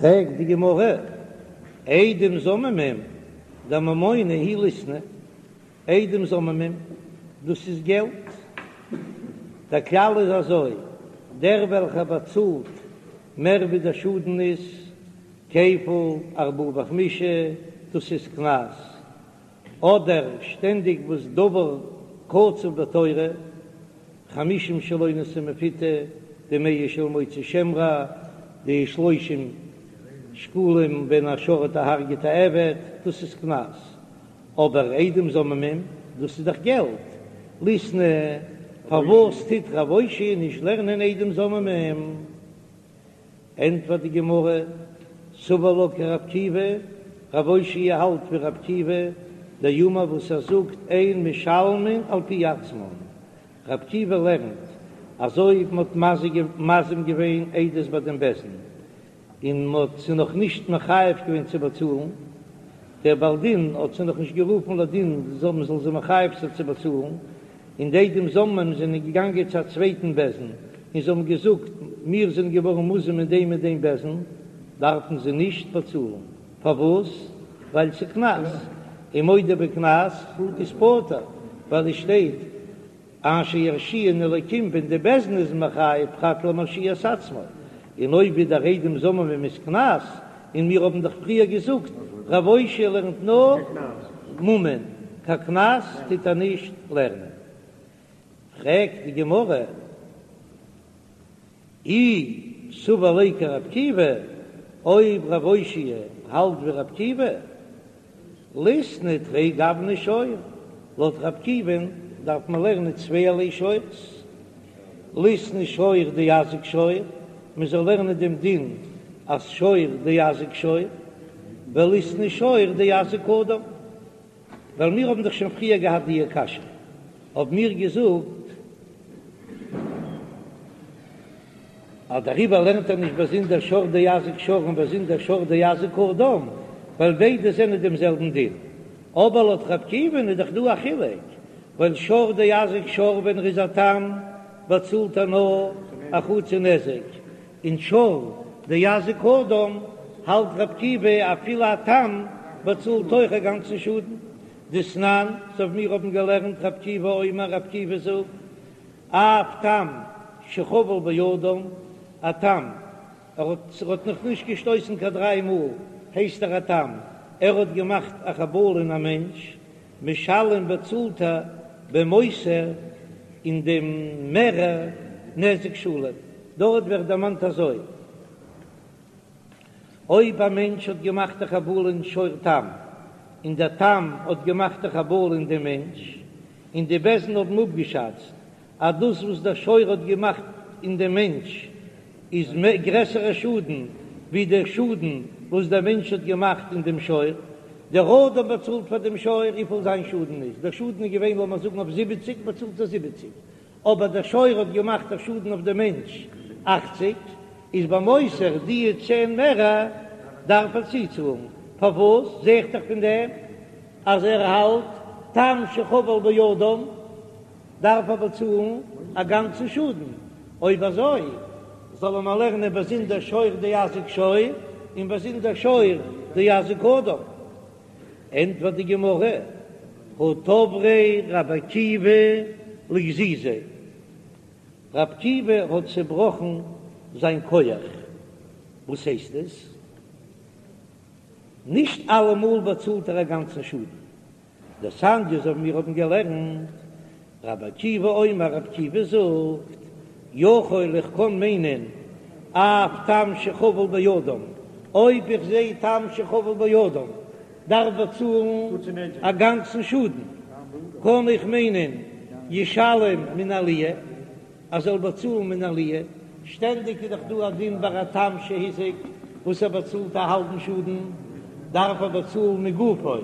פרעגט די גמרא, עדים זוממים דממונא הוא ליתני, עדים זוממים דאס איז געלט, דער כלל איז אזוי, דער וועלכער באצאלט מער ווי דער שאדן איז, כפל ארבעה וחמישה, דאס איז קנס, אדער שטענדיג וואס דבר קצוב בתורה, חמישים של אונס ומפותה, די מאה של מוציא שם רע, די שלושים שקלים ווען א שור האט דערהרגעט א עבד, דאס איז קנס, אבער עדים זוממים, דאס איז דאך געלט, ליתני, פארוואס טוט רב אושעיא נישט לערנען עדים זוממים? ענטפערט די גמרא, סבר לה כרבי עקיבא, רב אושעיא האלט ווי רבי עקיבא, דאמר וואס ער זאגט אין משלמין על פי עצמן, רבי עקיבא לערנט אז אויב מ'האט מזים געווען עדות ביי דעם בית דין און מ'האט זיי נאך נישט מחייב געווען צו באצאלן, דער בעל דין האט זיי נאך נישט גערופן לדין מ'זאל זיי מחייב זיין צו באצאלן, און די עדים זוממים זענען געגאנגען צו א צווייטן בית דין און זיי האבן געזאגט, מיר זענען געווארן מוזם אין דעם און דעם בית דין, דארפן זיי נישט באצאלן. פארוואס? ווייל ס'איז קנס, און מודה בקנס איז פטור, ווייל עס שטייט אשר ירשיען אלקים ווען די בית דין איז מחייב פרט למרשיע את עצמו, און אויב איז דער עדים זוממים איז קנס, און מיר האבן דאך פריער געזאגט רב אושעיא לערנט נאר ממון, קיין קנס טוט ער נישט לערנען. פרעגט די גמרא, אי סבר ליה כרבי עקיבא, אויב רב אושעיא האלט ווי רבי עקיבא, ליתני תרי גווני שור, לויט רבי עקיבא'ן דארף מען לערנען צווייערליי שור'ס, ליתני שור דאזיק שור, מען זאל לערנען דעם דין אז שור דאזיק שור, וליתני שור דאזיק אדם, ווייל מיר האבן דאך שוין פריער געהאט די קשיא, האבן מיר געזאגט אז דעריבער לערנט ער נישט באזונדער שור דאזיק שור און באזונדער שור דאזיק אדם, ווייל ביידע זענען דעם זעלבן דין. אבער לויט רבי עקיבא'ן איז דאך דא א חילוק, ווייל שור דאזיק שור ווען ער איז א תם באצאלט ער נאר א חצי נזק, און שור דאזיק אדם האלט רבי עקיבא אפילו א תם באצאלט אויך א גאנצן שאדן. דתנן, אזוי ווי מיר האבן געלערנט רבי עקיבא אומר רבי עקיבא זאגט, אף תם שחבל באדם, א תם, ער האט ער האט נאך נישט געשטויסן קיין דריי מאל, הייסט ער א תם, ער האט געמאכט א חבלה אין א מענטש, משלם באצאלט ער במותר אין דעם מערער נזק שלם, דארט ווערט דערמאנט אזוי. אויב א מענטש האט געמאכט א חבלה אין שור תם, און דער תם האט געמאכט א חבלה אין דעם מענטש, און די בית דין האבן אפגעשאצט אז דאס וואס דער שור האט געמאכט אין דעם מענטש איז גרעסערע שאדן ווי דער שאדן וואס דער מענטש האט געמאכט אין דעם שור, דער אדם באצאלט פאר דעם שור וויפיל זיין שאדן איז, דער שאדן איז געווען לאמיר זאגן אויף זיבעציק באצאלט ער זיבעציק, אבער דער שור האט געמאכט א שאדן אויף דעם מענטש אכציג, איז במותר די צען מערער דארף ער צוצאלן, פארוואס זע איך דאך פון דעם אז ער האלט תם שחבל באדם דארף ער באצאלן א גאנצן שאדן, אויב אזוי זאל ער מיר לערנען באזונדער שור דאזיק שור און באזונדער שור דאזיק אדם. ענטפערט די גמרא, הא תבריה רבי עקיבא לגזיזיה, רבי עקיבא האט צעבראכן זיין כח, וואס הייסט עס? נישט אלעמאל באצאלט ער א גאנצן שאדן, דתניא אזוי ווי מיר האבן געלערנט, רבי עקיבא אומר, רבי עקיבא זאגט, יכול איך קען מיינען אף תם שחבל באדם, אויב איך זע תם שחבל באדם דארף באצאלן א גאנצן שאדן, קען איך מיינען ישלם מן העליה, ער זאל באצאלן מן העליה, שטענדיג איז דאך דא א דין ביי א תם שהזיק וואס ער באצאלט א האלבן שאדן, דארף ער באצאלן מגופו,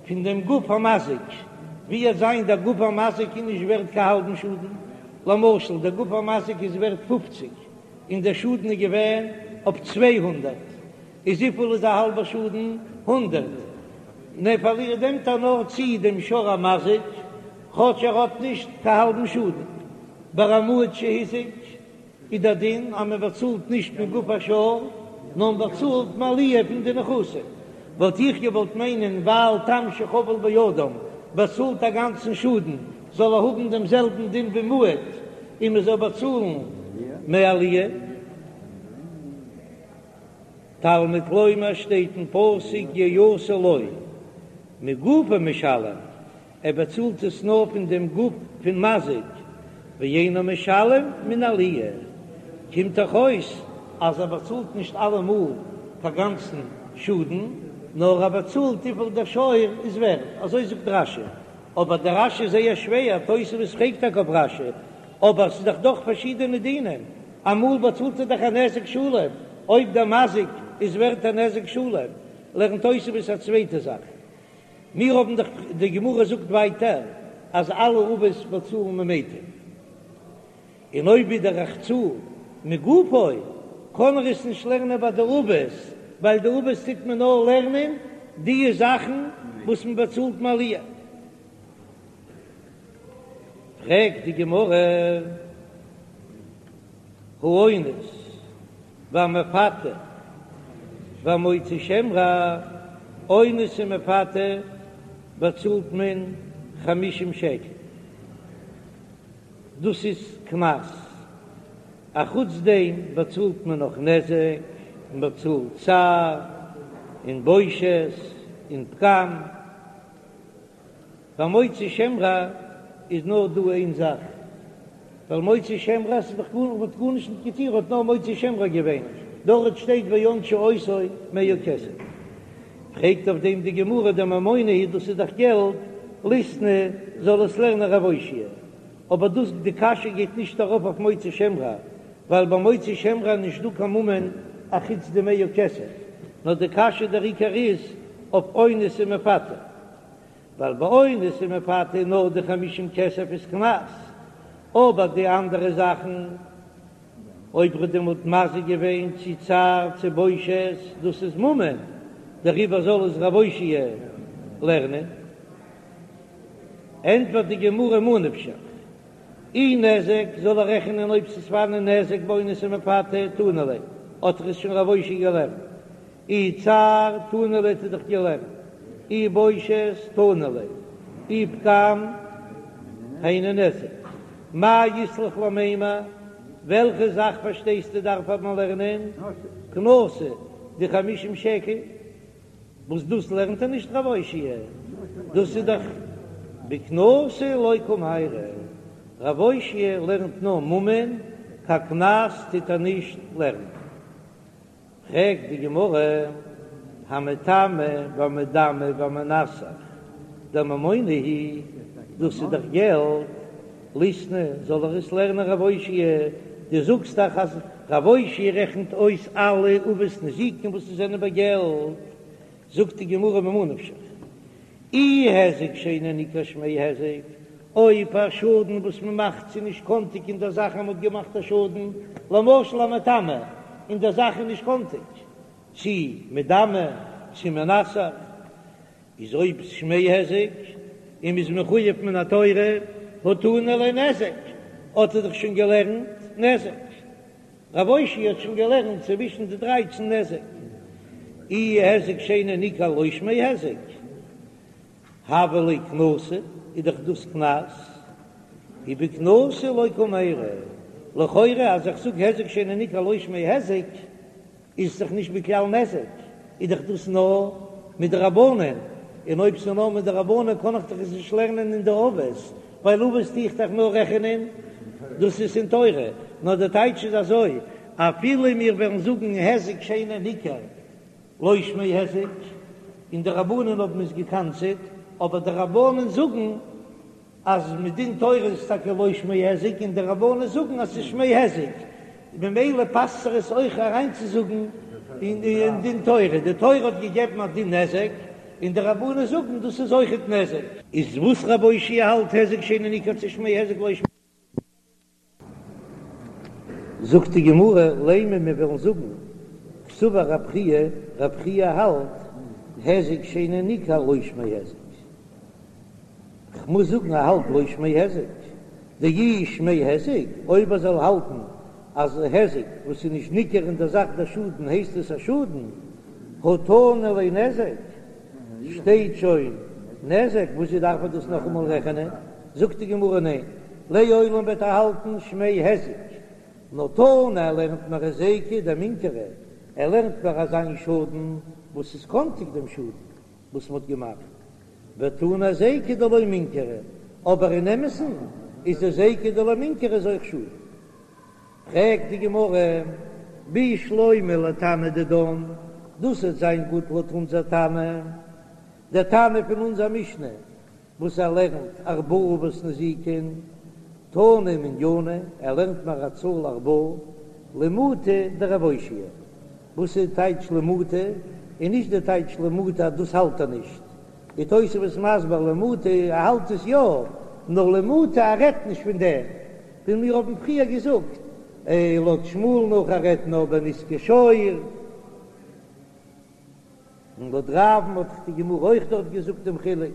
פון דעם גוף המזיק, ווי עט זיין דער גוף המזיק איז נישט ווערט קיין האלבן שאדן, למשל דער גוף המזיק איז ווערט פופציג און דער שאדן איז געווען אויף 200, איז וויפיל איז א האלבער שאדן? הונדערט. נע פארלירט נעמט ער נאר צו דעם שור המזיק, כאטש ער האט נישט קיין האלבן שאדן. ביי א מועד שהזיק איז דער דין אז מען באצאלט נישט מגוף השור. נאר מ'באצאלט מעליה פון די נכסים. וואלט איך געוואלט מיינען ווייל תם שחבל באדם באצאלט א גאנצן שאדן זאל ער האבן דעם זעלבן דין ווי מועד און מען זאל באצאלן מעליה. תלמוד לומר שטייט אין פסוק יעשה לו מגופו משלם, ער באצאלט עס נאר פון דעם גוף פון מזיק, ואינו משלם מן העליה, קומט דאך אויס אז ער באצאלט נישט אלעמאל קיין גאנצן שאדן, נאר ער באצאלט וויפיל דער שור איז ווערט, אזוי זאגט רש"י, אבער דער רש"י איז זייער שווער, תוספות פרעגט טאקע אויף רש"י, אבער ס'איז דאך דאך פארשידענע דינים, אמאל באצאלט ער דאך א נזק שלם, אויב דער מזיק איז ווערט א נזק שלם, לערנט תוספות א צווייטע זאך. מיר האבן דאך, די גמרא זאגט ווייטער אז אלע אבות באצאלן ממיטב, און אויב ווידער איך צאל מגופו, קען ער עס נישט לערנען ביי די אבות, ווייל די אבות טוט מען נאר לערנען די זאכן וואס מען באצאלט מעליה. פרעגט די גמרא, האונס והמפתה והמוציא שם רע, אונס און מפתה באצאלט מען חמישים שקל, דאס איז קנס, אחוץ דעם באצאלט מען נאך נזק, מען באצאלט צער און בושת און פגם. ביי מוציא שם רע איז נאר דא איין זאך, ווייל מוציא שם רע ס'איז דאך גארנישט, מ'האט גארנישט נישט געטון, האט נאר מוציא שם רע געווען, דארט שטייט וענשו אותו מאה כסף. פרעגט אויף דעם די גמרא דממונא הוא דאס איז דאך געלט, ליתני זאל עס לערנען רב אושעיא, אבער דאס די קשיא גייט נישט ארויף אויף מוציא שם רע, ווייל ביי מוציא שם רע איז נישט דא קיין ממון אחוץ די מאה כסף, נאר די קשיא דער עיקר איז אויף אונס און מפתה. ווייל ביי אונס און מפתה נאר די חמישים כסף איז קנס, אבער די אנדערע זאכן אויב ר'האט דעמאלט מזיק געווען צו צער צו בושת דאס איז ממון, דעריבער זאל עס רב אושעיא לערנען. ענטפערט די גמרא מה נפשך, אי נזק זאל ער רעכענען אויב ס'איז פארהאן נזק באונס ומפתה תנא ליה, האט ער עס שוין רב אושעיא געלערנט, אי צער תנא ליה האט ער דאך געלערנט, אי בושת תנא ליה, אי פגם היינו נזק, מאי אית לך למימר, וועלכע זאך פארשטייסטו דארף מען לערנען קנסא די חמישים שקל, וואס דאס לערנט ער נישט רב אושעיא, דאס איז דאך בקנסא לא קמיירי, רב אושעיא לערנט נאר ממון, קיין קנס טוט ער נישט לערנען. פרעגט די גמרא, המטמא והמדמה והמנסך דממונא הוא, דאס איז דאך געלט, ליתני, זאל ער עס לערנען רב אושעיא, דו זאגסט דאך אז רב אושעיא רעכנט אויס אלע אבות נזיקין וואס עס זענען ביי געלט, זאגט די גמרא ממה נפשך, אי היזק שאינו ניכר שמיה היזק, אויב א שאדן וואס מען מאכט ס'איז נישט קאנטיג אין דער זאך אז מען האט געמאכט א שאדן, למשל א מטמא, אין דער זאך איז נישט קאנטיג, צי מדמה, צי מנסך, איז אויב שמיה היזק און מ'איז מחויב מן התורה, הא תנא ליה נזק, האט ער דאך שוין געלערנט נזק. רב אושעיא האט שוין געלערנט צווישן די דרייצן נזק, אי היזק שאינו ניכר לא שמיה היזק, הוה ליה קנסא, איז דאך דאס קנס, ובקנסא לא קמיירי, לכאורה אז איך זאג היזק שאינו ניכר לא שמיה היזק, איז דאך נישט בכלל נזק, איז דאך דאס נאר מדרבנן, און אויב ס'איז נאר מדרבנן קען איך דאך עס נישט לערנען אין די אבות, ווייל אבות טו איך דאך נאר רעכענען דאס איז אין תורה, נאר די טייטש איז אזוי, אפילו מיר וועלן זאגן היזק שאינו ניכר לא שמיה היזק, און די רבנן האבן עס געקנס'עט, אבער די רבנן זאגן אז מדין תורה איז טאקע לא שמיה היזק און די רבנן זאגן אז ס'איז שמיה היזק, ממילא פאסט זיך עס אויך אריינצוזאגן אין דין תורה, די תורה האט געגעבן א דין נזק און די רבנן זאגן דאס איז אויכעט נזק. איז וואס רב אושעיא האלט היזק שאינו ניכר צו שמיה היזק לא שמיה. זאגט די גמרא, לימא מיר וועלן זאגן, קסבר רב חייא, רב חייא האלט, היזק שאינו ניכר לא שמיה היזק. כ'מוז זאגן ער האלט לא שמיה היזק. דאי שמיה היזק, אויב ער זאל האלטן. אז היזק וואס איז נישט ניכר אין דער זאך דער שאדן הייסט עס א שאדן, הא תנא ליה נזק, שטייט שוין נזק, וואס דארף מען דאס נאכאמאל רעכענען? זאגט די גמרא ניין, לעולם וועט ער האלטן שמיה היזק, נאר תנא ער לערנט מיר היזקא דמינכרא, ער לערנט מיר אזא שאדן וואס איז קאנטיג דעם שאדן וואס מ'האט געמאכט, ותנא היזקא דלא מינכרא, אבער אין אמת'ן איז די היזקא דלא מינכרא איז אויך שאדן. פרעגט די גמרא, בשלמא לתנא דידן, דאס וועט זיין גוט לויט אונזער תנא, דער תנא פון אונזער משנה וואס ער לערנט ארבעה אבות נזיקין, תנא מנינא, ער לערנט מיר א צאל ארבעה, למעוטי דרב אושעיא, וואס איז טייטש למעוטי? און נישט די טייטש למעוטי אז דאס האלט ער נישט, די תוספות איז מסביר למעוטי ער האלט עס יא, נאר למעוטי ער רעדט נישט פון דעם, ווי מיר האבן פריער געזאגט, לויט שמואל נאך ער רעדט נאר בנזקי שור. און לויט רב'ן האט דאך די גמרא אויך דארט געזאגט דעם חילוק.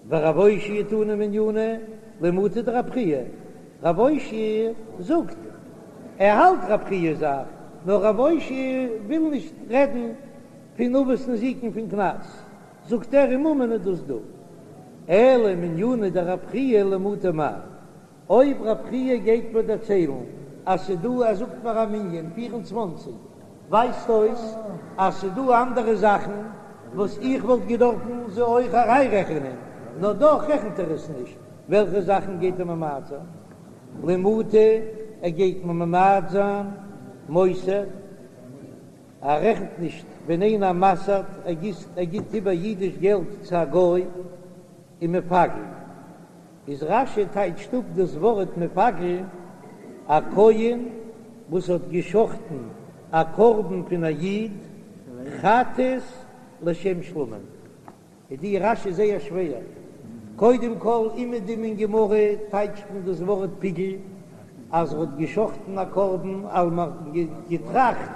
ורב אושעיא תנא מנינא למעוטי דרב חייא, רב אושעיא זאגט ער האלט רב חייא זאך, נאר רב אושעיא וויל נישט רעדן פון אבות נזיקין פון קנס, זאגט ער אין ממון איז דאס דא. אלא מנינא דרב חייא למעוטי מאי? אויב רב חייא גייט מיר דערציילן אז ס'דא ער זאגט מיר א מנין 24 ווייזט אויס אז ס'דא אנדערע זאכן וואס איך וואלט געדארפן זיי אויך אריינרעכענען, נאר דאך רעכנט ער עס נישט, וועלכע זאכן גייט ער ממעט זיין? למעוטי ער גייט מיר ממעט זיין מוסר, ער רעכנט נישט ווען איינער מסר'ט ער גיסט ער גיט איבער אידיש געלט צו א גוי און מפגל. איז רש"י טייטשט אפ דאס ווארט מפגל, א כהן וואס האט געשחטן א קרבן פון א איד חטאת לשם שלמים. איז די רש"י זייער שווער. קודם כל אומעדום אין גמרא טייטשט מען דאס ווארט פיגול אז ער האט געשחטן א קרבן ווייל מ'האט געטראכט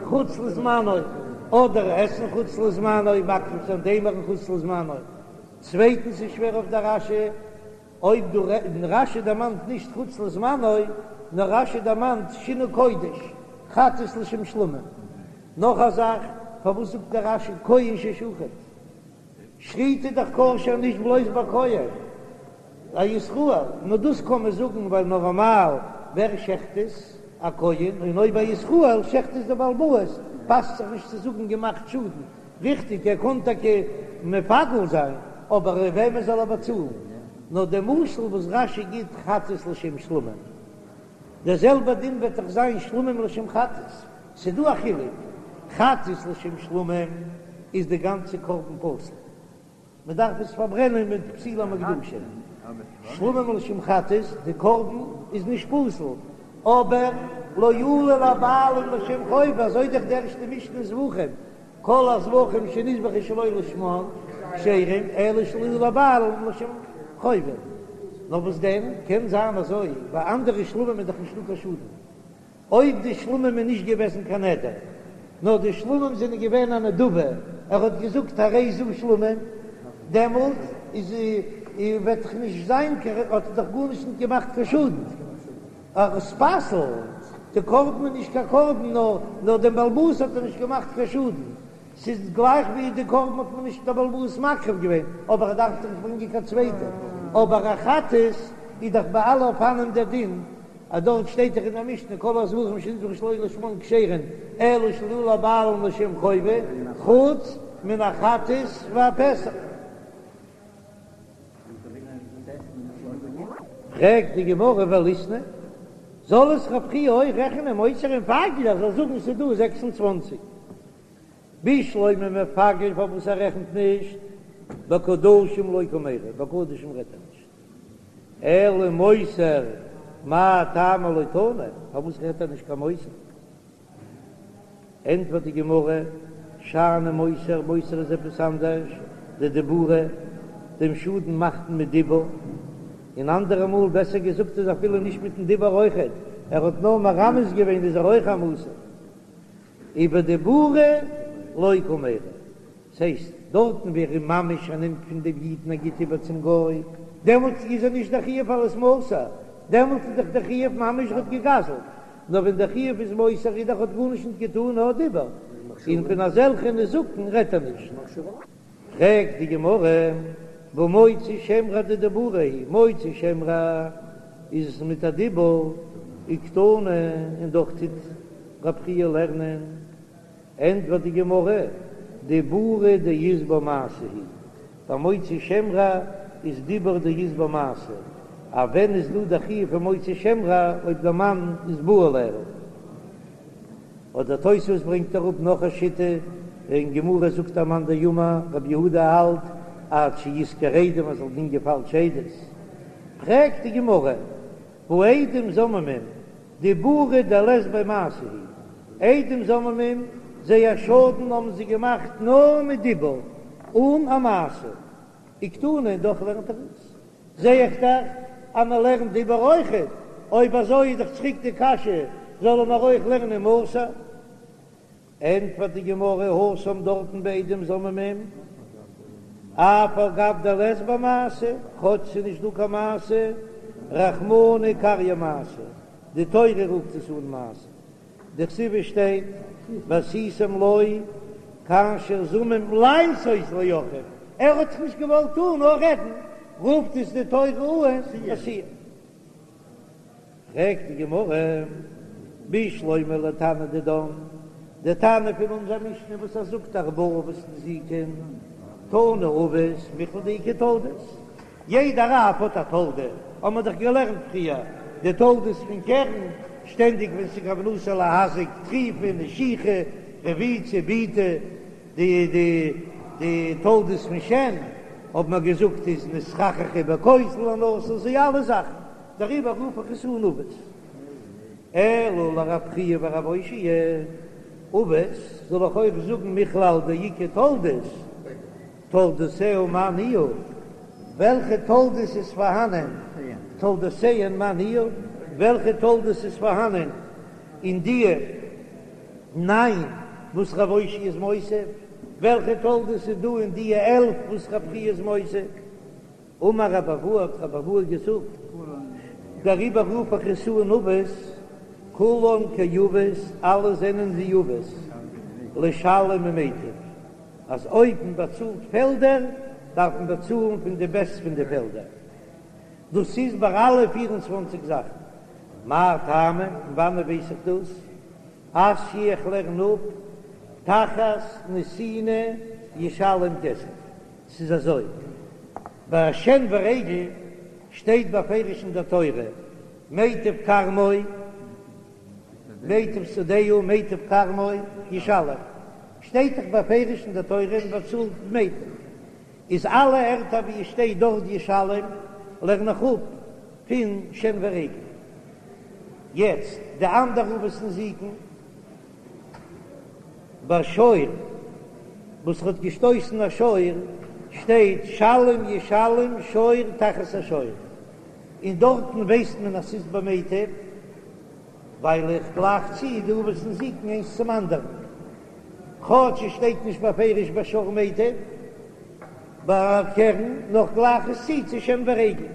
חוץ לזמנו, אדער עסן חוץ לזמנו, מקריב זיין דעם אימורין חוץ לזמנו. צווייטנס איז שווער אויף דער רש"י, אויב דא רש"י דערמאנט נישט חוץ לזמנו, נאר רש"י דערמאנט שינוי קודש, חטאת לשם שלמים. נאך א זאך, פארוואס זאגט דער רש"י כהן ששחט? שחיטה איז דאך כשר נישט בלויז ביי כהן, א ישראל, נאר דאס קען מען זאגן ווייל נארמאל ווער שעכט עס? א כהן, און אויב א ישראל שעכט עס דער בעל הבית, פאסט זיך נישט צו זאגן געמאכט שאדן. ריכטיג, ער קען טאקע מפגל זיין, אבער וועמען זאל ער באצאלן? נאר דער משל וואס רש"י גיט חטאת לשם שלמים, דער זעלבער דין וועט דאך זיין שלמים לשם חטאת, ס'דא א חילוק, חטאת לשם שלמים איז די גאנצע קרבן פסול, מען דארף עס פארברענען מיט פסולי המוקדשים, שלמים לשם חטאת, די קרבן איז נישט פסול, אבער לא עלו לבעלים לשם חובה, אזוי דאך די ערשטע משנה אין זבחים, כל הזבחים שנזבחו שלא לשמן כשרים, אלא שלא עלו לבעלים לשם חובה. נאר וואס דען, קען זיין אזוי, ביי אנדערע שלמים איז דאך נישטא קיין שאדן, אויב די שלמים איז נישט געוועזן קיין נדר, נאר די שלמים זענען געווען א נדבה, ער האט געזאגט הרי זו שלמים, דעמאלט איז וועט דאך נישט זיין קיין, האט ער דאך גארנישט נישט געמאכט קיין שאדן, עס פסל'ט די קרבן איז נישט קיין קרבן, נאר נאר דעם בעל הבית האט ער נישט געמאכט קיין שאדן, ס'איז גלייך ווי די קרבן האט מען נישט דער בעל הבית מקריב געווען, אבער ער דארף דאך נישט ברענגען קיין צווייטע, אבער א חטאת איז דאך ביי אלע אופנים דער דין, אז דארט שטייט דאך אין דער משנה כל הזבחים שנזבחו שלא לשמן כשרין אלא שלא עלו לבעלים לשם חובה, חוץ מן החטאת והפסח. פרעגט די גמרא וליתני, זאל עס רב חייא אויך רעכענען מוסר ומפגל ער זאל זאגן ס'איז דא 26 בשלמא מפגל פארוואס ער רעכנט נישט בקדשים לא קמיירי בקדשים רעדט ער נישט אלא מוסר מאי טעמא לא תני פארוואס רעדט ער נישט קיין מוסר ענטפערט די גמרא שאני מוסר מוסר איז עפעס אנדערש דדיבורא דעם שאדן מאכט מען מיט דיבור און אנדערע מאל בעסער געזאגט איז אפילו נישט מיטן דיבור אויכעט ער האט נאר מרמז געווען איז ער אויך א מוסר. ובדיבורא לא קמיירי, ס'הייסט, דארטן ווי ער איז ממש ער נעמט פון דעם איד און ער גיט איבער צום גוי, דעמאלטס איז ער נישט דער חיוב אלס מוסר. דעמאלט איז דאך דער חיוב ממש ער האט געגזלט, נאר ווען דער חיוב איז מוסר איז דאך האט גארנישט נישט געטאן נאר דיבור, און פון אזעלכע נזקין רעדט ער נישט. פרעגט די גמרא, והא מוציא שם רע דדיבורא הוא, מוציא שם רע איז עס מיט א דיבור, וקתני, און דאך טוט רב חייא לערנען, ענטפערט די גמרא, דיבורא דאית ביה מעשה הוא, ביי מוציא שם רע איז דיבור דאית ביה מעשה, א ווען איז דא די חיוב פון מוציא שם רע אויב דער מאן איז בא עליה? אדער תוספות ברענגט אראפ נאך א שיטה, אין גמרא זאגט א מאן דאמר רבי יהודה האלט עד שישכור עדים אז זאל דינגען פאלשע עדות, פרעגט די גמרא, והא עדים זוממים דיבורא דלית ביה מעשה הוא, עדים זוממים זייער שאדן האבן זיי געמאכט נאר מיט דיבור אן א מעשה, וקתני און דאך לערנט ער עס, זע איך דאך אז מען לערנט דיבור אויכעט, אויב אזוי איז דאך צוריק די קשיא, זאלן מיר אויך לערנען מוסר? ענטפערט די גמרא, התם דארטן בעדים זוממים, אף על גב דלית ביה מעשה, כאטש ס'איז נישט דא קיין מעשה, רחמנא קרייה מעשה, די תורה רופט עס אן מעשה, דכתיב עס שטייט ועשיתם לו כאשר זמם לעשות לאחיו, ער האט דאך נישט געוואלט טון נאר רעדן, רופט עס די תורה אן עשיה. פרעגט די גמרא, בשלמא לתנא דידן, די תנא פון אונזער משנה וואס ער זאגט ארבעה אבות נזיקין, תני אבות מכלל דאיכא תולדות, יעדער אב האט א תולדה, האבן מיר דאך געלערנט פריער די תולדות פון קרן, שטענדיג ווען ס'איז כוונתו להזיק, טריפה, נשיכה, רביצה, בעיטה, די די די תולדות פון שן האבן מיר געזאגט איז נתחככה בכותל הנתון, די אלע זאכן, דעריבער רוף איך עס אן אבות. אלא לרב חייא ורב אושעיא, אבות זאל איך אויך זאגן מכלל דאיכא תולדות, תולדותיה מאי ניהו, וועלכע תולדות איז פארהאנען, תולדותיהן מאי ניהו, וועלכע תולדות איז פארהאנען אין דיע ניין וואס רב אושעיא איז מוסיף, וועלכע תולדות איז דא אין דיע 11 וואס רב חייא איז מוסיף. אמר רב אבהו האט רב אבהו געזאגט, דעריבער רוף איך עס אן אבות, כולן כאבות, אלע זענען ווי אבות, לשלם ממיטב, אז אויב מען באצאלט פעלדער, דארף מען באצאלן פון די בעסט פון די פעלדער. דאס איז ביי אלע פיר און צוואנציג זאכן. מאי טעמא, פון וואנעט ווייס איך דאס? אתיא איך לערן אפ, תחת נתינה ישלם כסף. ס'איז אזוי, ביי שן ורגל שטייט בפירוש אין דער תורה, מיטב כרמו, מיטב שדהו, מיטב כרמו ישלם, שטייט דאך בפירוש אין דער תורה מען באצאלט מיטב, איז אלע ערטער ווי עס שטייט דארט ישלם לערן איך אפ פון שן ורגל. יעצט די אנדערע אבות נזיקין. ביי שור וואס האט געשטויסן א שור שטייט שלם ישלם שור תחת השור, און דארטן ווייסט מען אז ס'איז במיטב, ווייל איך גלייך צו די אבות נזיקין איינס צום אנדערן, כאטש עס שטייט נישט בפירוש ביי שור מיטב, ביי קרן, נאר כ'גלייך עס צו צו שן ורגל,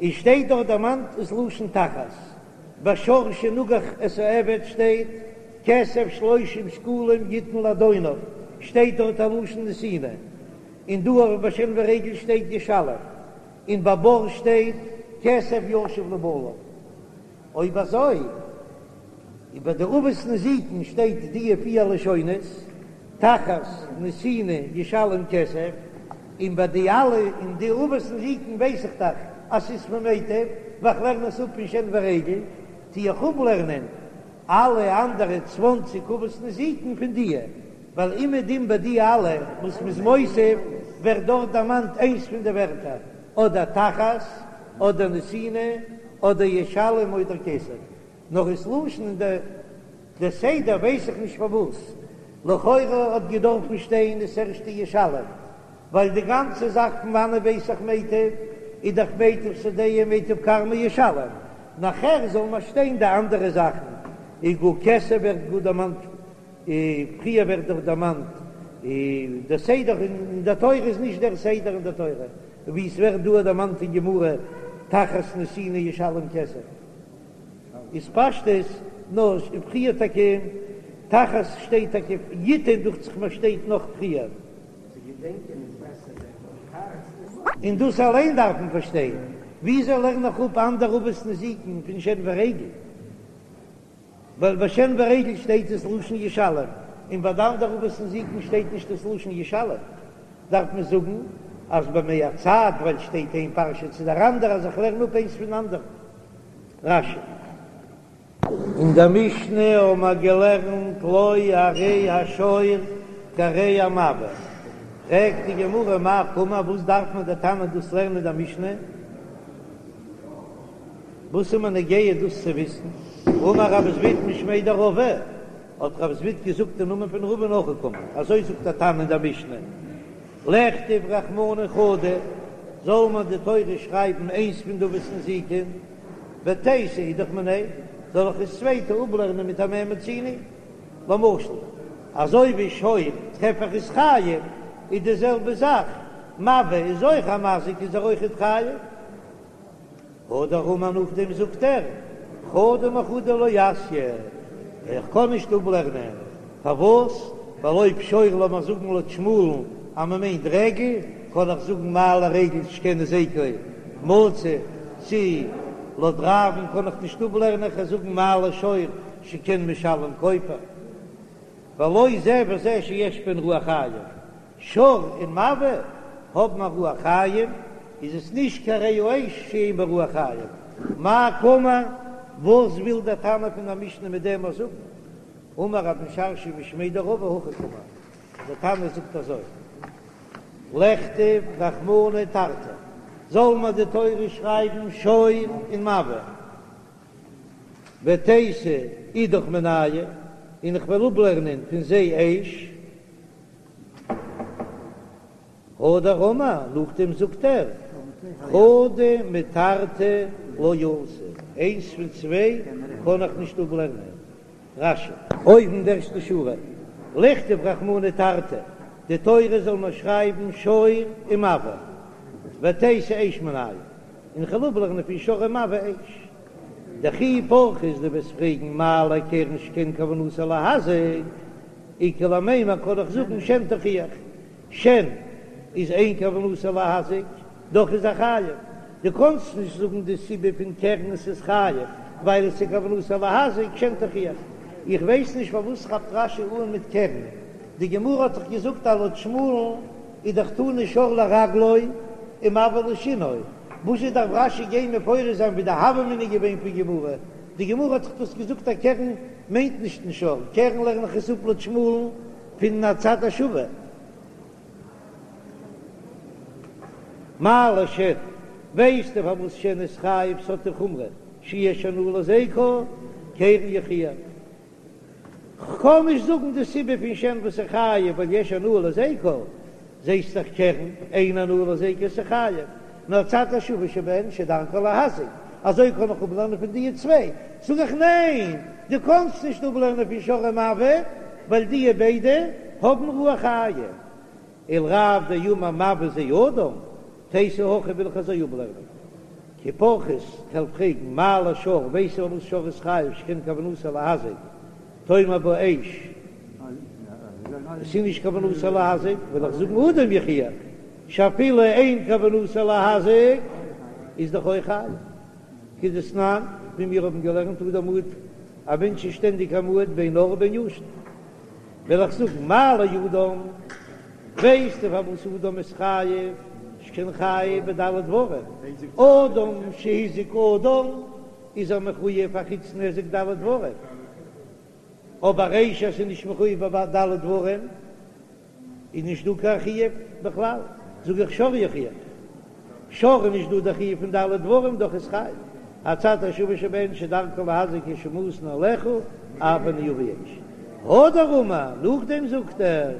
און שטייט דארט דערמאנט דאס לשון תחת. בשור שנגח את העבד שטייט כסף שלושים שקלים יתן לאדוניו, שטייט דארט א לשון נתינה, און דא אויך ביי שן ורגל שטייט ישלם, און ביי בור שטייט כסף ישיב לבעליו. אויב אזוי איז ביי די אבות נזיקין שטייט די פיר לשונות, תחת נתינה ישלם כסף, און ביי די אלע אין די אבות נזיקין ווייס איך דאך אז ס'איז פון מיטב, ווייל כ'לערן עס אפ פון שן ורגל, טו איך אפלערנען אלע אנדערע צוואנציג אבות נזיקין פון דיע, ווייל אומעדום ביי די אלע וואס מ'איז מוסיף ווערט דארט דערמאנט איינס פון די ווערטער, אדער תחת, אדער נתינה, אדער ישלם אדער כסף. נאר דאס לשון און די די סדר ווייס איך נישט פארוואס, לכאורה האט געדארפן שטיין דאס ערשטע ישלם, ווייל די גאנצע זאך פון וואנען ווייס איך מיטב איז דאך מיטב שדהו מיטב כרמו ישלם, נאכער זאל מען שטיין די אנדערע זאכן, איז גאר כסף ווערט גאר דערמאנט פריער ווערט דאך דערמאנט דער סדר אין דער תורה איז נישט דער סדר אין דער תורה ווי עס ווערט דא דערמאנט אין גמרא. תחת נתינה ישלם כסף איז פשטות נאר פריער טאקע תחת שטייט טאקע יתן דוכט זיך מיר שטייט נאך פריער. און דאס אליין דארף מען פארשטיין, וויאזוי לערן איך אפ אנדערע אבות נזיקין פון שן ורגל? ווייל ביי שן ורגל שטייט עס לשון ישלם, און ביי די אנדערע אבות נזיקין שטייט נישט דאס לשון ישלם, דארף מען זאגן אז במהצד ווייל שטייט איין פרשה צו דער אנדערע אז איך לערן אפ איינס פון אנדערן. רש"י. אין דער משנה האבן מיר געלערנט לא הרי השור כהרי המבעה, פרעגט די גמרא מאי קאמר וואס דארף מען דער תנא דאס לערנען אין דער משנה? וואס איז מיר נוגע דאס צו וויסן? אמר רב זביד משמיה דרבא, האט רב זביד געזאגט אין נאמען פון רבא'ן הכי קאמר, אזוי זאגט דער תנא אין דער משנה, לכתוב רחמנא חדא, זאל מען די תורה שרייבן איינס פון די אבות נזיקין, ותיתי אידך מיניה, זאל איך עס צווייטע אפלערנען מיט א מה מצינו? למשל, אזוי ווי שור טרעף איך איז חייב, איז די זעלבע זאך, מבעה איז אויך א מזיק איז ער אויכעט חייב. הדר אמר נאכדעם זאגט ער, חדא מחדא לא אתיא, איך קען נישט אפלערנען, פארוואס? ווייל אויב שור לאמיר זאגן לויט שמואל'ן אז מען מיינט רגל, קען איך זאגן מה לרגל שכן היזקו מצוי, צי לויט רב'ן קען איך נישט אפלערנען, איך וועל זאגן מה לשור שכן משלם כופר, ולא זה וזה שיש בהן רוח חיים. שור און מבעה האבן א רוח חיים, איז עס נישט כהרי האש שאין בה רוח חיים. מאי קאמר, וואס וויל דער תנא פון דער משנה מיט דעם אויס זאגן? אמר רב משרשיא משמיה דרבא הכי קאמר, דער תנא זאגט אזוי, לכתוב רחמנא תרתי, זאל מען די תורה שרייבן שור און מבעה, ותיתי אידך מינייהו, און איך וועל אפלערנען פון זיי אש. הדר אמר, נאכדעם זאגט ער, חדא מתרתי לא אתי, איינס פון צוויי קען איך נישט אפלערנען. רש"י. אויבן די ערשטע שורה, לכתוב רחמנא תרתי, די תורה זאל מען שרייבן שור און מבעה, ותיתי אש מינייהו, און כ'וועל אפלערנען פון שור און מבעה אש. דכי פרכת דו וועסט פרעגן מה לקרן שכן כוונתו להזיק, איכא למימר קען איך זאגן שן תוכיח, שן איז אין כוונתו להזיק, דאך איז ער חייב, דו קאנסט נישט זאגן די סיבה פון קרן עס איז חייב ווייל עס איז כוונתו להזיק, שן תוכיח. איך ווייס נישט פארוואס כאפט רש"י אן מיט קרן, די גמרא האט דאך געזאגט אז לויט שמואל'ן איז דאך תנא שור לרגלו און מבעה לשינו, וואזשע דארף רש"י גיין מפרש זיין ווי די הוה אמינא איז געווען פון גמרא, די גמרא האט דאך דאס געזאגט אז קרן מיינט נישט אין שור, קרן לערן איך עס אפ לויט שמואל'ן פון הצד השווה. מה לשן, ווייסטו פארוואס שן איז חייב ס'האט די חומרא שיש הנאה להזיקו, קרן יוכיח. כ'קען נישט זאגן די סיבה פון שן וואס איז חייב ווייל יש הנאה להזיקו, זעסט דאך קרן אין הנאה להזיקו איז חייב, נאר הצד השווה שבהן שדרכו להזיק, אזוי קען איך אפלערנען פון דיע צוויי, זאג איך ניין דו קענסט נישט אפלערנען פון שור און מבעה ווייל דיע ביידע האבן רוח חיים, ולרב דאמר מבעה זה אדם, תיתי הכי וויל איך אזוי אפלערנען. כי פרכת כ'וועל פרעגן מה לשור ווייסט פארוואס שור איז חייב שכן כוונתו להזיק תאמר בה אש עס איז נישט כוונתו להזיק וועל איך זאגן אדם יוכיח שאפילו אין כוונתו להזיק איז דאך אויך חייב כדתנן ווי מיר האבן געלערנט אדם מועד א מענטש איז שטענדיג א מועד בין ער ובין ישן. וועל איך זאגן מה לאדם, ווייסטו פארוואס אדם איז חייב, שכן חייב בד' דברים, אדם שהזיק אדם איז ער מחויב א חוץ נזק ד' דברים, אבער אש אז ס'איז נישט מחויב בד' דברים איז נישט דא קיין חיוב בכלל, זאג איך שור יוכיח, שור איז נישט דא די חיוב פון ד' דברים דאך איז חייב, הצד השווה שבהן שדרכו להזיק כשמתין עליך אף אני אביא אש. הדר אמר, נאכדעם זאגט ער,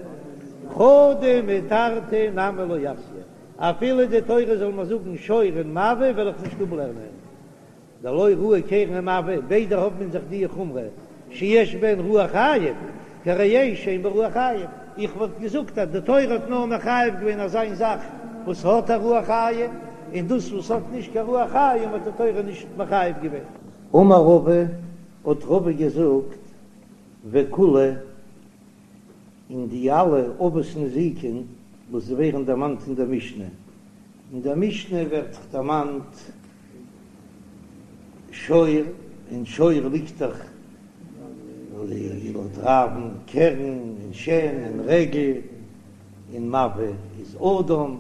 חדא מתרתי נמי לא אתיא, אפילו די תורה זאל מיר זאגן שור און מבעה וועל איך נישט אפלערנען. דלא ראי קרן ומבעה, ביידע האבן אין זיך די חומרא שיש בהן רוח חיים, כהרי אש שאין בה רוח חיים, איך וואלט געזאגט אז די תורה האט נאר מחייב געווען אזא איין זאך וואס האט א רוח חיים, און דאס וואס האט נישט קיין רוח חיים האט די תורה נישט מחייב געווען. אמר רבא, האט רבא געזאגט, וכולהו, און די אלע אבות נזיקין וואס ווערן דערמאנט אין דער משנה, אין דער משנה ווערט דערמאנט שור, אין שור ליגט דאך לויט רב'ן קרן און שן און רגל, און מבעה איז אדם,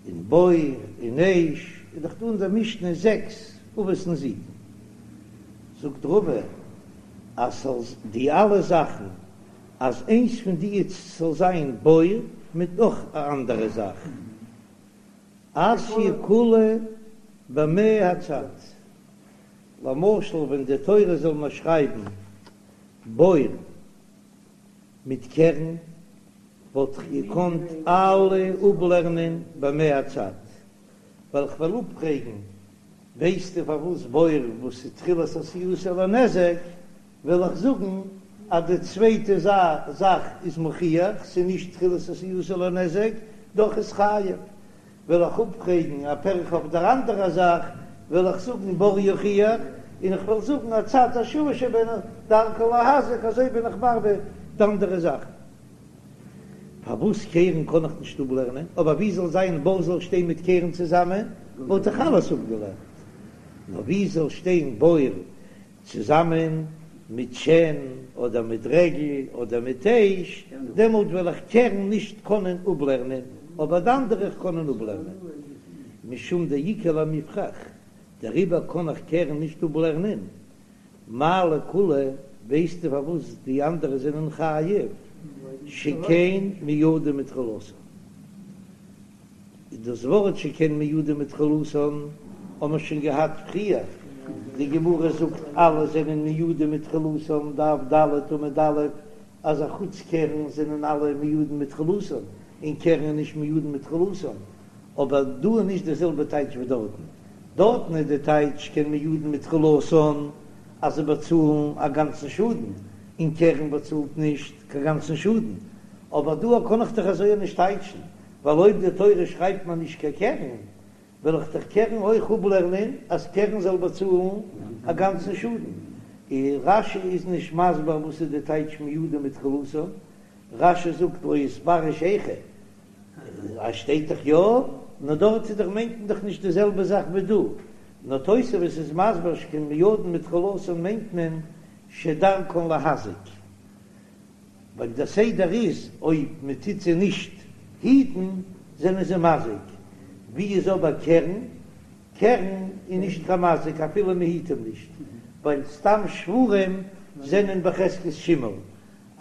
און בור און אש, איז דאך דא אין דער משנה זעקס אבות נזיקין. זאגט רבא אז ס'זאל די אלע זאכן אז איינס פון די זאל זיין בור מיט נאך א אנדערע זאך, אתיא כולהו במהצד, למשל ווען די תורה זאל מיר שרייבן בור מיט קרן וואלט איך געקאנט אלע אפלערנען במהצד, ווייל כ'וועל אפפרעגן, ווייסטו פארוואס בור וואס איז תחילת עשייתו לנזק, וועל איך זאגן אז די צווייטע זאך איז מוכיח ס'איז נישט תחילת עשייתו לנזק, דאך איז חייב. וועל איך אפפרעגן א פירכא אויף דער אנדערע זאך, וועל איך זאגן בור יוכיח, און איך וועל זאגן הצד השוה שבהן דרכן להזיק, אזוי בין איך מרבה די אנדערע זאכן. פארוואס קרן קען איך נישט אפלערנען? אבער ווי זאל זיין בור זאל שטיין מיט קרן צוזאמען, וואלט איך אלעס אפגעלערנט. נאר ווי זאל שטיין בור צוזאמען מיט שן אדער מיט רגל אדער מיט אש, דעמאלט וועל איך קרן נישט קענען אפלערנען, אבער די אנדערע איך קענען אפלערנען. משום דאיכא למיפרך, דעריבער קען איך קרן נישט אפלערנען. מאי לכולהו, ווייסטו פארוואס די אנדערע זענען חייב? שכן מועדין מתחילתן. דאס ווארט שכן מועדין מתחילתן האבן מיר שוין געהאט פריער, די גמרא זאגט אלע זענען מועדין מתחילתן, דף ד עמוד א', אז א חוץ קרן זענען אלע מועדין מתחילתן, און קרן איז נישט מועדין מתחילתן, אבער דא איז נישט די זעלבע טייטש ווי דארטן, דארטן איז די טייטש שכן מועדין מתחילתן אז זיי באצאלן א גאנצן שאדן, און קרן באצאלט נישט קיין גאנצן שאדן, אבער דא קען איך דאך אזוי נישט טייטשן, ווייל אויב די תורה שרייבט מיר נישט קיין קרן, וועל איך דאך קרן אויך אפלערנען אז קרן זאל באצאלן א גאנצן שאדן. און רש"י איז נישט מסביר וואס איז די טייטש מועדין מתחילתן, רש"י זאגט לא איתפרש היכא, אז שטייט דאך יא, נאר דארט איז דאך מיינט מען דאך נישט די זעלבע זאך ווי דא, נאר תוספות איז מסביר שכן מועדין מתחילתן מיינט מען שדרכן להזיק. ווייל דער סדר איז אויב מען טוט זיי נישט היטן זענען זיי מזיק, ווי איז אבער קרן? קרן איז נישט קיין מזיק אפילו מען היט אים נישט, ווייל סתם שוורים זענען בחזקת שימור,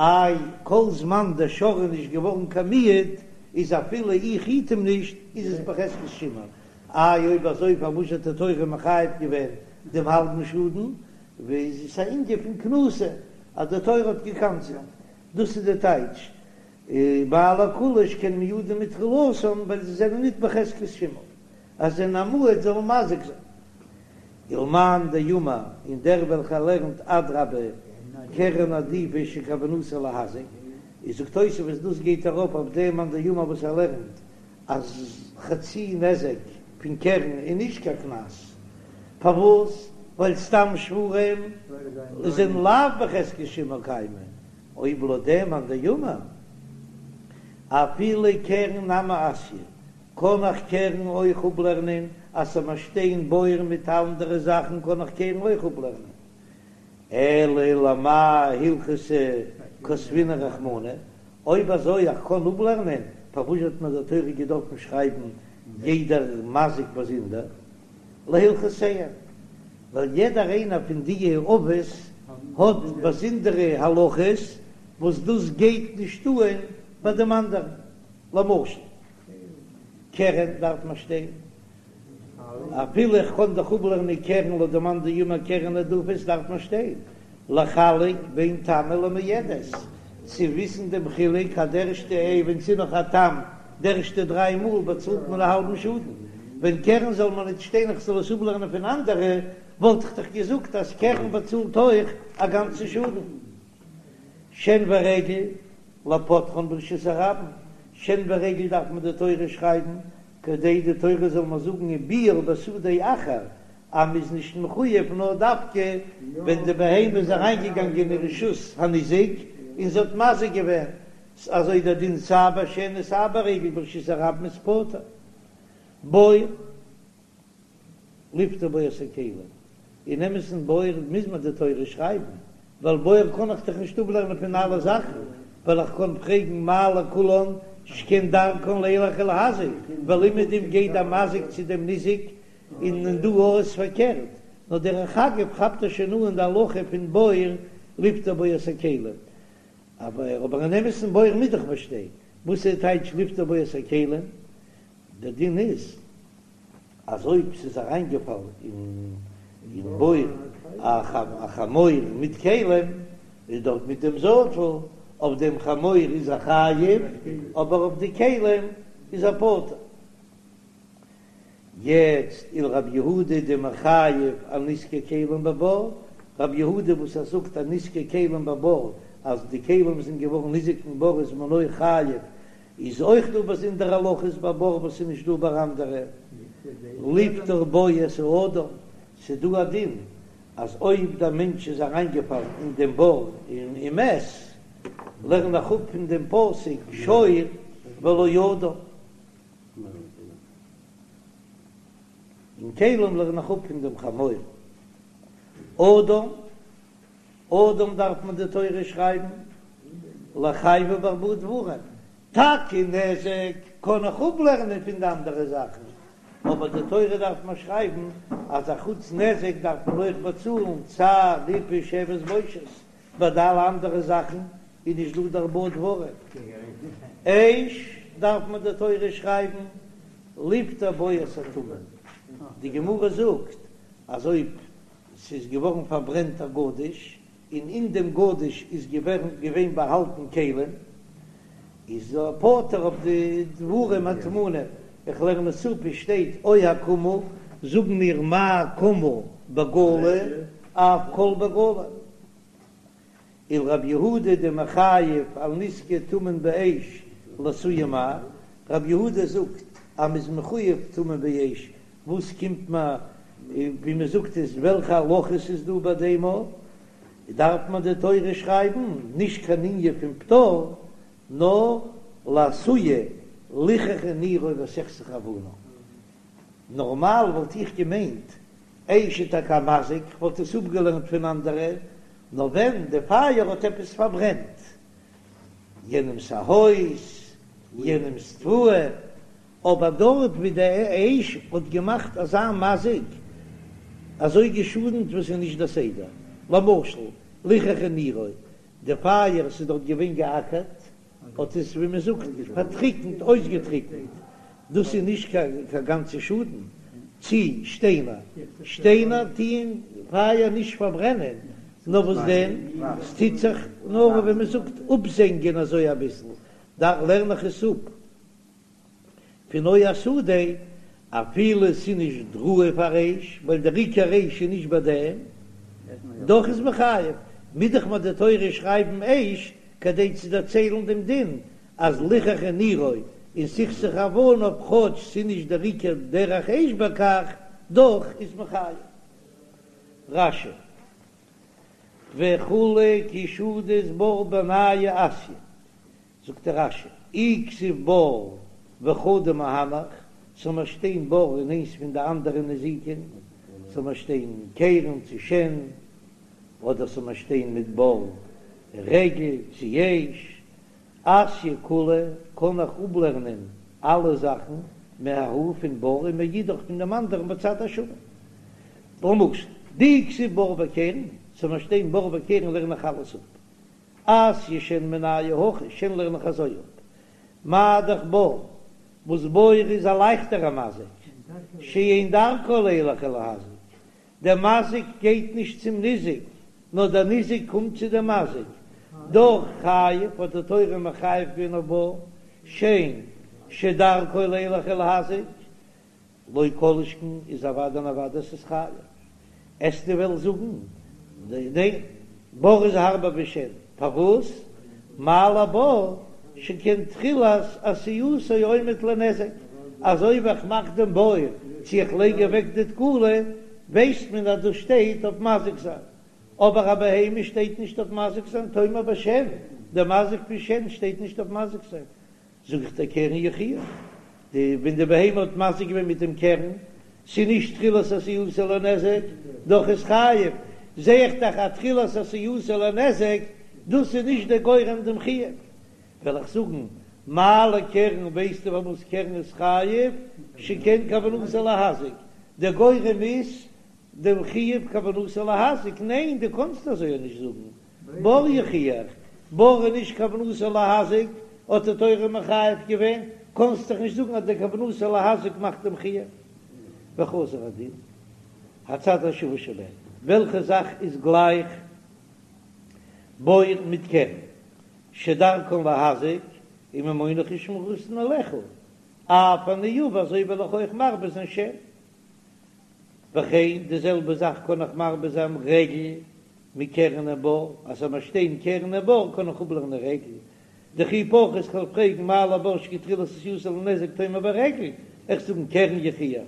איי כל זמן דער שור איז נישט געווארן קיין מועד איז אפילו איך היט אים נישט איז עס בחזקת שימור, איי אויב אזוי פארוואס האט די תורה מחייב געווען דעם האלבן שאדן? ווייל עס איז א ענין פון קנסא אז די תורה האט געקנס'עט, דאס איז די טייטש מאי לכולהו שכן מועדין מתחילתן ווייל זיי זענען ניט בחזקת שימור אז זיי זענען א מועד זאלן מזיק זיין. ולמאן דאמר און דער וועלכער לערנט אדרבה קרן עדיפא שכוונתו להזיק, איז זאגט תוספות דאס גייט ארויף אויף דעם מאן דאמר וואס ער לערנט אז חצי נזק פון קרן איז נישט קיין קנס, פארוואס? ווייל סתם שוורים זענען לאו בחזקת שימור קיימי, אויב לויט דעם מאן דאמר אפילו קרן נמי אתיא, קען איך קרן אויך אפלערנען, אז ס'זאל מיר שטיין בור מיט אנדערע זאכן קען איך קרן אויך אפלערנען, אלא למאי הלכתא כתבינהו רחמנא, אויב אזוי איך קען אפלערנען, פארוואס האט מיר די תורה געדארפן שרייבן יעדער מזיק באזונדער? להלכותיהם, ווייל יעדער איינער פון די אבות האט באזונדערע הלכות וואס דאס גייט נישט אן ביי דעם אנדערן, למשל קרן דארף מען שטיין אפילו איך קען דאך אפלערנען קרן לויט די מאן דאמר קרן עדיפא דארף מען שטיין לחלק בין תמה למועדת צו וויסן דעם חילוק אז די ערשטע עה ווען ס'איז נאך א תם די ערשטע דריי מאל באצאלט מען א האלבן שאדן ווען קרן זאל מען ניט שטיין איך זאל עס אפלערנען פון אנדערע וואלט איך דאך געזאגט אז קרן באצאלט אויך א גאנצן שאדן שן ורגל לפוטרן ברשות הרבים שן ורגל דארף מען די תורה שרייבן. כדי די תורה זאל מיר זאגן וביער בשדה אחר אז מ'איז נישט מחויב נאר דווקא ווען די בהמה איז אריינגעגאנגען אין רשות הניזק און זי האט מזיק געווען, אזוי דער דין סיי ביי שן און סיי ביי רגל ברשות הרבים איז פטור. בור לפטור בו את הכלים, אין אמת'ן בור מוז מען די תורה שרייבן, ווייל בור קען איך דאך נישט אפלערנען פון אלע זאכן, ווייל איך קען פרעגן מה לכולן שכן דרכן לילך ולהזיק, ווייל אומעדום גייט דער מזיק צו דעם ניזק, און דא איז פארקערט, נאר דרך אגב כאפט ער שוין אן די הלכה פון בור לפטור בו את הכלים, אבער אבער אין אמת'ן בור מוז דאך באשטיין, וואס איז טייטש לפטור בו את הכלים? דער דין איז אז אויב ס'איז אריינגעפאלן אין בור א חמור מיט כלים, איז דארט מיט דעם זאטל, אויף דעם חמור איז ער חייב, אבער אויף די כלים איז ער פטור. יעצט ולרב יהודה דמחייב על נזקי כלים בבור, רב יהודה וואס ער זאגט אז נזקי כלים בבור, אז די כלים זענען געווארן ניזוק אין בור איז מען אויך חייב, איז אויך דא באזונדערע הלכות ביי בור וואס איז נישט דא ביי אנדערע, לפטור בו את האדם, ס'איז דא א דין אז אויב דער מענטש איז אריינגעפאלן אין דעם בור און איז מת, לערן איך אפ פון דעם פסוק שור ולא אדם, און כלים לערן איך אפ פון דעם חמור אדם. אדם דארף מען די תורה שרייבן לחייבו בארבעה דברים, טאקע נזק קען איך אפלערנען פון די אנדערע זאכן, אבער די תורה דארף מען שרייבן אז א חוץ נזק דארף מען אויך באצאלן צער ריפוי שבת בושת, ביי די אלע אנדערע זאכן איז נישט דא די ארבעה דברים. אש דארף מען די תורה שרייבן לפטור בו את הטמון, די גמרא זאגט אז אויב ס'איז געווארן פארברענט א גדיש, און אין דעם גדיש איז געווען באהאלטן כלים, איז ער פטור אויף די דברים הטמונים. איך לערן עס אפ, עס שטייט או הקמה, זאגן מיר מה קמה בגלוי אף כל בגלוי. ולרב יהודה דמחייב על נזקי טמון באש לאתויי מאי, רב יהודה זאגט אז מ'איז מחויב טמון באש, וואס קומט מיר ווי מ'זאגט עס וועלכע הלכות איז דא ביי דעם א, דארף מען די תורה שרייבן נישט קיין ענין פון פטור נאר לאתויי ליחכה נירו וסכסך אבניו, נארמאל וואלט איך געמיינט אש איז טאקע א מזיק, כ'וואלט עס אפגעלערנט פון אנדערע, נאר ווען די פייער האט עפעס פארברענט יענעמס א הויז, יענעמס תבואה, אבער דארט ווי די אש האט געמאכט אזא מזיק, אזוי געשאדנט וואס איז נישט די סדר, למשל ליחכה נירו, די פייער ס'איז דארט געווען געאקערט, האט עס ווי מען זאגט פארטריקנט, אויסגעטריקנט, דאס איז נישט קיין גאנצע שאדן, צי שטיינער, שטיינער טוען פייער נישט פארברענען, נאר וואס דען, ס'טוט זיך נאר ווי מען זאגט אפזענגען אזוי אביסל, דאך לערן איך עס אפ. פון או השדה, אפילו ס'איז נישט ראוי פאר אש, ווייל דער עיקר אש איז נישט ביי דעם, דאך איז מחייב, מוז דאך מיר די תורה שרייבן אש כדי צו דערציילן דעם דין אז ליחכה נירו און סכסך אבניו כאטש ס'איז נישט דער עיקר דרך אש בכך, דאך איז מחייב. רש"י, וכו' כי שדית בור מינייהו אתיא, זאגט דער רש"י, אי כתיב בור וחדא מהנך, ס'זאל מיר שטיין בור און איינס פון די אנדערע נזיקין, ס'זאל מיר שטיין קרן צו שן, אדער ס'זאל מיר שטיין מיט בור רגל צו אש, אתיא כולהו קען איך אפלערנען אלע זאכן מההוא פון בור און מאידך פון דעם אנדערן בצד השווה. למשל, דאי כתיב בור וקרן, ס'זאל מיר שטיין בור וקרן לערן איך אלעס אפ. אתיא שן מינייהו הכי, שן לערן איך אזוי אפ. מה דאך בור, וואס בור איז א לייכטערע מזיק, שאין דרכו לילך ולהזיק, דער מזיק גייט נישט צום ניזק, נאר דער ניזק קומט צו דעם מזיק, דאך חייב האט די תורה מחייב געווען אויף בור, שן שדרכו לילך ולהזיק, לא כל שכן איז אוודאי און אוודאי ס'איז חייב. עסטו וועלן זאגן ניין בור איז הארבער ווי שן, פארוואס? מה לבור שכן תחילת עשייתו עומד לנזק, אזוי ווי איך מאך דעם בור צו איך לייג אוועק די תקלה, ווייסט מען אז דאס שטייט אויף מזיק זיין, אבער א בהמה שטייט נישט אויף מזיק זיין, תאמר בשן, דער מזיק פון שן שטייט נישט אויף מזיק זיין, זאג איך דיר קרן יוכיח, די ווען די בהמה האט מזיק געווען מיט דעם קרן, ס'איז נישט תחילת עשייתו לנזק, דאך איז חייב, זע איך דאך אז תחילת עשייתו לנזק, דאס איז נישט דער גורם דעם חיוב. וועל איך זאגן, מה לקרן ווייסטו פארוואס קרן איז חייב, שכן כוונתו להזיק, דער גורם איז דעם חיוב כוונתו להזיק, ניין דו קאנסט אזוי נישט זאגן, בור יוכיח, בור איז נישט כוונתו להזיק, האט די תורה מחייב געווען, קאנסט דאך נישט זאגן אז דער כוונתו להזיק מאכט דעם חיוב. וחזר הדין, הצד השווה שבהן, וועלכע זאך איז גלייך בור מיט קרן, שדרכן להזיק וממונך ושמירתן עליך, אף אני אביא אזוי וועל איך אויך מרבה זיין שן. וכן די זעלבע זאך קען איך מרבה זיין רגל מקרן ובור, אז ס'זאל מיר שטיין קרן ובור קען איך אפלערנען רגל, דכי פרכת כ'וועל פרעגן מה לבור שכן תחילת עשייתו לנזק תאמר ברגל, איך זאגן קרן יוכיח,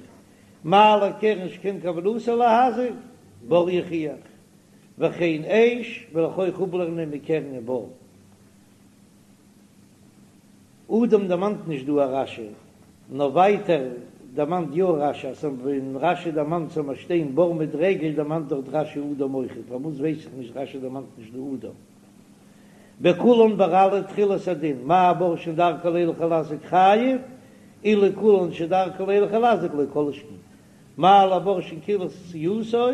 מה לקרן שכן כוונתו להזיק, בור יוכיח, וכן אש וועל איך אויך אפלערנען מקרן ובור. אדם דערמאנט נישט דא א רש"י, נאר ווייטער דערמאנט יא רש"י, אז ווען רש"י דערמאנט ס'זאל מיר שטיין בור מיט רגל דערמאנט דארט רש"י אדם אויכעט, פארוואס ווייס איך נישט רש"י דערמאנט נישט דא אדם. בכולן ביי אלע תחילת הדין, מה בור שאין דרכו לילך ולהזיק חייב, אלו כולן שדרכו לילך ולהזיק לא כל שכן. מה לבור שכן תחילת עשייתו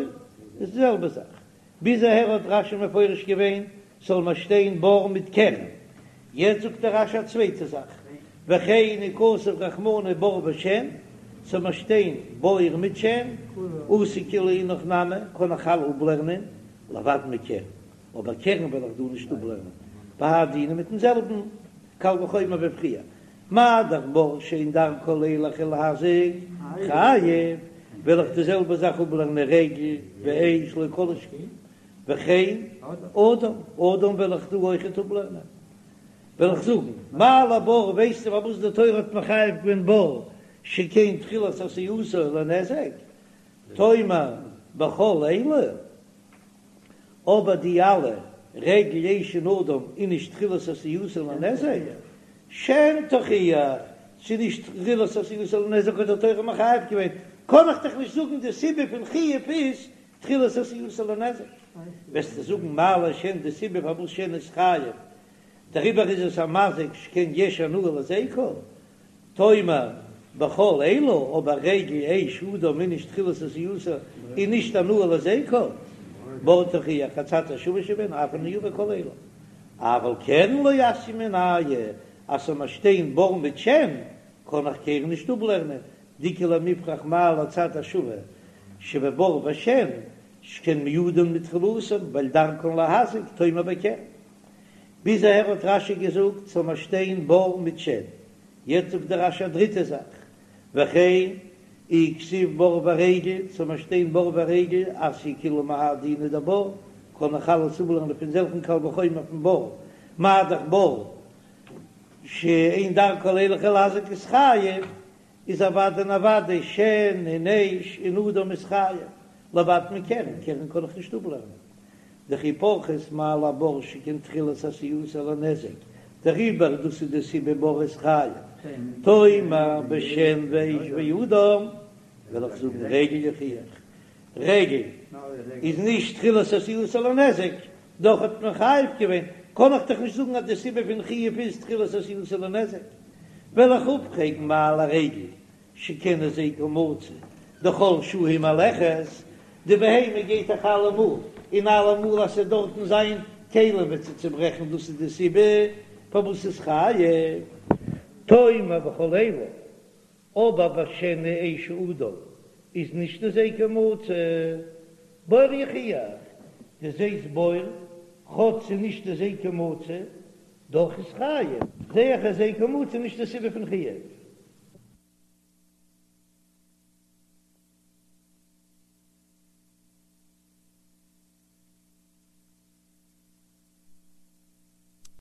איז די זעלבע זאך. ביז אהער האט רש"י מפרש געווען ס'זאל מיר שטיין בור מיט קרן, יעצט זאגט דער רש"י א צווייטע זאך, וכן אי כתב רחמנא בור ושן, ס'זאל מיר שטיין בור מיט שן, אתי כולהו אינך נמי, קען איך אלע אפלערנען, לבד מקרן, אבער קרן וועל איך דא נישט אפלערנען, בהאי דינא מיטן זעלבן קל וחומר ווי פריער, מה דאך בור שאין דרכו לילך ולהזיק חייב, וועל איך די זעלבע זאך אפלערנען רגל ואש לא כל שכן, וכן אדם, אדם וועל איך דא אויכעט אפלערנען, וועל איך זאגן, מה לבור ווייסטו פארוואס די תורה האט מחייב געווען בור שכן תחילת עשייתו לנזק, תאמר בכל אלו. אבער די אלע רגל אש און אדם איז נישט תחילת עשייתו לנזק, שן תוכיח, ס'איז נישט תחילת עשייתו לנזק האט די תורה מחייב געווען, קען איך דאך נישט זאגן די סיבה פון חיוב איז תחילת עשייתו לנזק, וועסטו זאגן מה לשן די סיבה פארוואס שן איז חייב דעריבער איז עס א מזיק שכן יש הנאה להזיקו, תאמר בכל אלו, אבער רגל אש אדם איז נישט תחילת עשייתו און נישט הנאה להזיקו, בור תוכיח הצד השווה שבהן אף אני אביא כל אלו, אבל קרן לא אתיא מינייהו, אז ס'זאל מיר שטיין בור מיט שן, קען איך קרן נישט אפלערנען, דאיכא למיפרך מה להצד השווה שבבור ושן, שכן מועדין מתחילתן, ווייל דרכן להזיק, תאמר בקרן. ביז אהער האט רש"י געזאגט ס'זאל מיר שטיין בור מיט שן, יעצט זאגט דער רש"י א דריטע זאך, וכן אי כתיב בור ורגל, ס'זאל מיר שטיין בור ורגל, אתיא כולהו מהאי דינא דבור, קען איך אלעס אפלערנען פון זעלכן קל וחומר פון בור, מה דאך בור שאין דרכו לילך ולהזיק איז חייב, איז אוודאי און אוודאי שן און אש און אדם איז חייב, לבד מקרן, קרן קען איך נישט אפלערנען. דכי פרכת מה לבור שכן תחילת עשייתו לנזק, דעריבער דאס איז די סיבה בור איז חייב, תאמר בשן ואש ואדם, וועל איך זאגן רגל יוכיח, רגל איז נישט תחילת עשייתו לנזק, דאך האט מען חייב געווען, קען איך דאך נישט זאגן אז די סיבה פון חיוב איז תחילת עשייתו לנזק, וועל איך אפפרעגן מה לרגל שכן הזיקה מצוי דכל שעה היא מהלכת, די בהמה גייט דאך אלעמאל, און אלעמאל אז ס'וועט דארטן זיין כלים וועט זי צוברעכן דאס איז די סיבה פארוואס ס'איז חייב. תאמר בכל אלו, אבער בשן ואש ואדם איז נישט הזיקו מצוי, בור יוכיח, דו זעסט בור, כאטש ס'איז נישט הזיקו מצוי, דאך איז חייב, זע איך אז הזיקו מצוי איז נישט די סיבה פון חיוב.